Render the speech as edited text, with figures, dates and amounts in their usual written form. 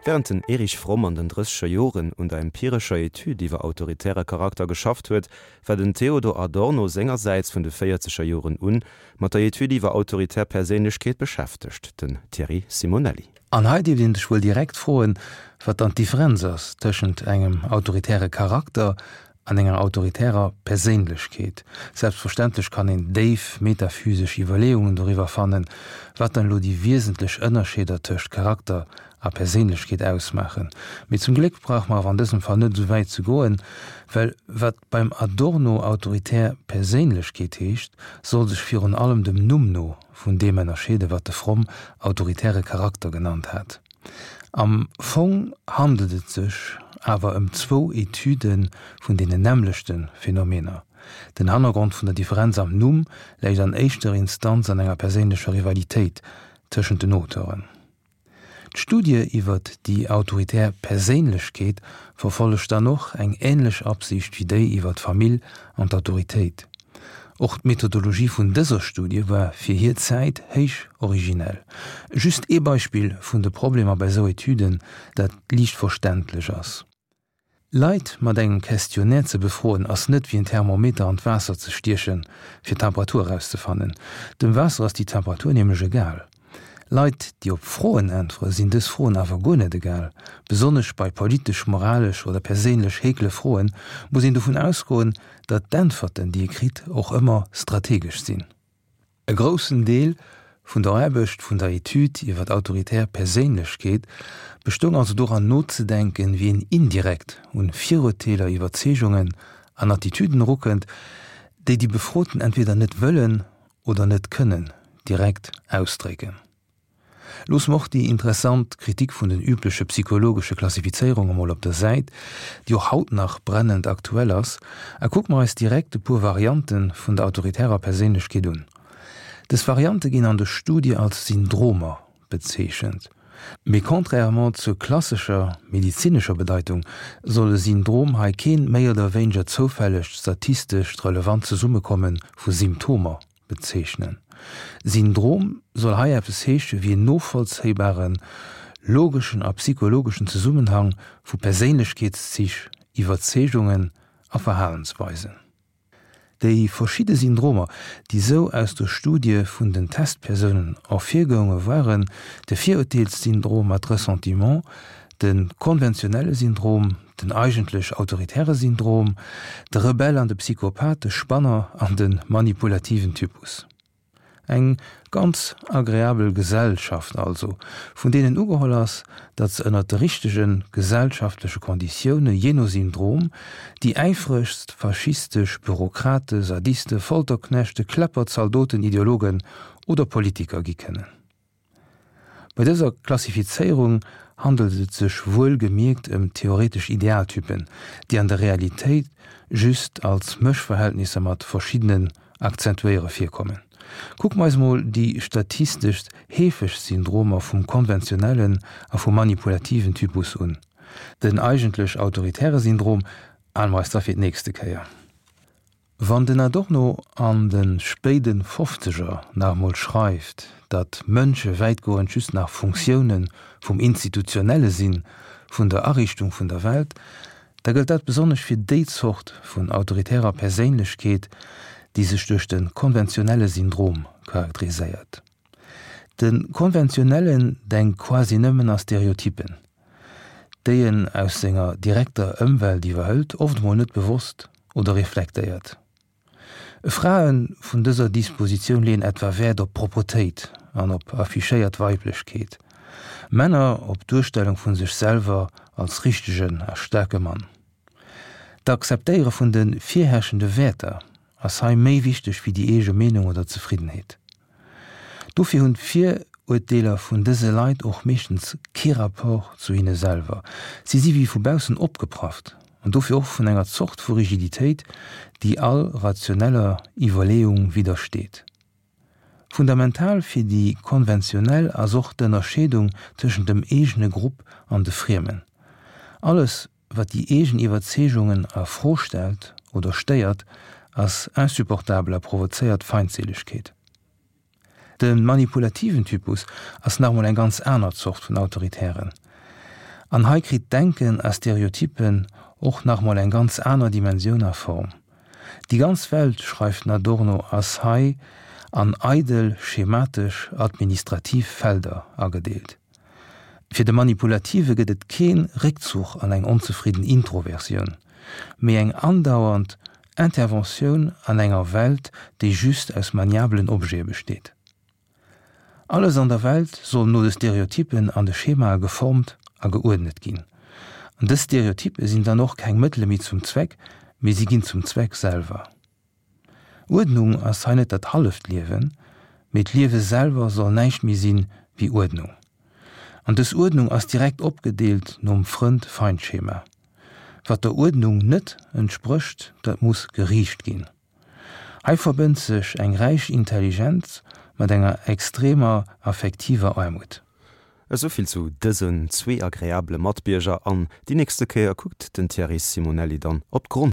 Wärend den Erich Fromm an den drësseger Joren un der empirescher Etüd iwwer autoritäre Charakter geschafft huet, war den Theodor Adorno sengersäits vun de véierzeger Joren un mat der Etüd iwwer autoritär Perséinlechkeet beschäftegt, den Thierry Simonelli. An hei dierft een sech wuel direkt froen, wat dann d'Differenz ass tëschent engem autoritäre Charakter an enger autoritärer Perséinlechkeet. Selbstverständlech kann een déif metaphysesch Iwwerleeungen doriwwer fannen, wat dann elo déi wiesentlech Ënnerscheeder tëscht Charakter a Perséinlechkeet ausmaachen. Mee zum Gléck brauche mer awer an dësem Fall net esou wäit ze goen, well wat beim Adorno autoritär Perséinlechkeet heescht, soll sech virun allem dem Numm no vun deem ënnerscheeden, wat de Fromm autoritäre Charakter genannt hat. Am Fong handelt et sech awer ëm zwou Etüde vun deenen nämmlechte Phänomener. Den Hannergrond vun der Differenz am Numm läit an éischter Instanz an enger perséinlecher Rivalitéit tëschent den Auteuren. D'Studie iwwer déi autoritär Perséinlechkeet verfollegt dann och eng änlech Absicht wéi déi iwwer d'Famill an d'Autoritéit. Och d'Methodologie vun dëser Studie war fir hir Zäit héich originell. Just ee Beispill vun de Problemer bei sou Etüden, dat liicht verständlech ass. Leit mat engem Questionnaire ze befroen ass net wéi en Thermometer an d'Waasser ze stiechen, fir d'Temperatur erauszefannen. Dem Waasser ass déi Temperatur nämlech egal. Leit, déi op Froen äntwere sinn dës Froen awer guer net egal. Besonnesch bei politesch, moralesch oder perséinlech heekle Froen muss een dovun ausgoen, datt d'Äntwerten, déi ee kritt, och ëmmer strategesch sinn. E groussen Deel vun der Aarbecht vun der Etüd iwwer d'autoritär Perséinlechkeet bestoung also doran nozedenken, wéi een indirekt un Virurteeler, Iwwerzeegungen an Attitüden erukënnt, déi déi Befroten entweder net wëllen oder net kënnen direkt ausdrécken. Loosse mer och déi interessant Kritik vun den übleche psychologesche Klassifizéierunge mol op der Säit, déi och haut nach brennend aktuell ass, a kucke mer eis direkt e puer Variante vun der autoritärer Perséinlechkeet un. Dës Variante ginn an de Studie als Syndromer bezeechent. Mee contrairement zur klassescher medezinescher Bedeitung soll e Syndrom hei keen méi oder wéineger zoufällegt statistescht relevant Zesummekomme vu Symptomer Bezeechnen. Syndrom soll hei eppes heesche wéi en novollzéibaren, logeschen a psychologeschen Zesummenhang vu Perséinlechkeetszich, Iwwerzeegungen a Verhalensweisen. Déi verschidde Syndromer, déi sou aus der Studie vun den Testpersounen ervirgounge waren, de Virurteelssyndrom mat Ressentiment, de konventionelle Syndrom, den eigentlech autoritäre Syndrom, de Rebell an de Psychopath, de Spanner an de manipulativen Typus. Eng ganz agreabel Gesellschaft also, vun deenen ugeholl ass, datt se ënnert de richtege gesellschaftleche Konditioune, jee no Syndrom, déi äifregst faschistesch Bürokrate, Sadiste, Folterknechte, Kläpper, Zaldoten, Ideologen oder Politiker gi kënnen. Bei dëser Klassifizéierung handelt et sech wuel gemierkt ëm theoretesch Idealtypen, déi an der Realitéit just als Mëschverhältnisser mat verschiddenen Akzentuéiere virkommen. Kucke mer eis mol déi statisteschst heefegst Syndromer vum konventionellen a vum manipulativen Typus un. Den eigentlech autoritäre Syndrom hale mer eis da fir d'nächste Kéier. Wann den Adorno an de spéide Fofzeger nach emol schreift, datt Mënsche wäitgoend just nach Funktioune vum Institutionelle sinn, vun der Ariichtung vun der Welt, da gëllt dat besonnesch fir déi Zort vun autoritärer Perséinlechkeet, déi sech duerch de konventionelle Syndrom charakteriséiert. De Konventionellen denkt quasi nëmmen a Stereotypen, déi en aus senger direkter Ëmwelt iwwerhëlt, oft emol net bewosst oder reflektéiert. Frae vun dëser Dispositioun leeën etwa Wäert op Propretéit an op affichéiert Weiblechkeet, Männer op d'Duerstellung vu sech selwer als richtegen a staarke Mann. D'Akzeptéiere vun de virherrschende Wäerter ass hei méi wichteg wéi déi eege Meenung oder Zefriddenheet. Dofir hunn d'Viruerteeler vun dëse Leit och meeschtens kee Rapport zu hinne selwer. Si si wéi vu baussen opgeprafft an dofir och vun enger Zort vu Rigiditéit, déi all rationeller Iwwerleeung widdersteet. Fundamental fir déi Konventionell ass och d'Ënnerscheedung tëschent dem eegene Grupp an de Friemen. Alles, Wat déi eegen Iwwerzeegungen a Fro stellt oder stéiert, ass insupportabel a provozéiert Feindseelegkeet. De manipulativen Typus ass nach emol eng ganz aner Zort vun Autoritären. An hei kritt d'Denken a Stereotypen och nach mol eng ganz aner Dimensioun a Form. Déi ganz Welt, schreift den Adorno, ass hei an eidel, schematesch, administrativ Felder agedeelt. Fir de Manipulative gëtt et kee Réckzuch an eng onzefridden Introversioun, mee eng andauernd Interventioun an enger Welt, déi just aus maniabelen Objete besteet. Alles an der Welt soll no de Stereotypen an de Schemae geformt a geuerdnet ginn. An dës Stereotype sinn dann och keng Mëttele méi zum Zweck, mee si ginn zum Zweck selwer. Uerdnung ass hei net dat halleft Liewen, mee d'Liewe selwer soll näischt méi sinn wéi Uerdnung. An dës Uerdnung ass direkt opgedeelt nom Frënd-Feind-Schema. Wat der Uerdnung net entsprécht, dat muss geriicht ginn. Hei verbënnt sech eng räich Intelligenz mat enger extremer affektiver Aarmut. Esouvill zu dësen zwee agreabele Matbierger an déi nächste Kéier kuckt den Thierry Simonelli dann op d'Grond.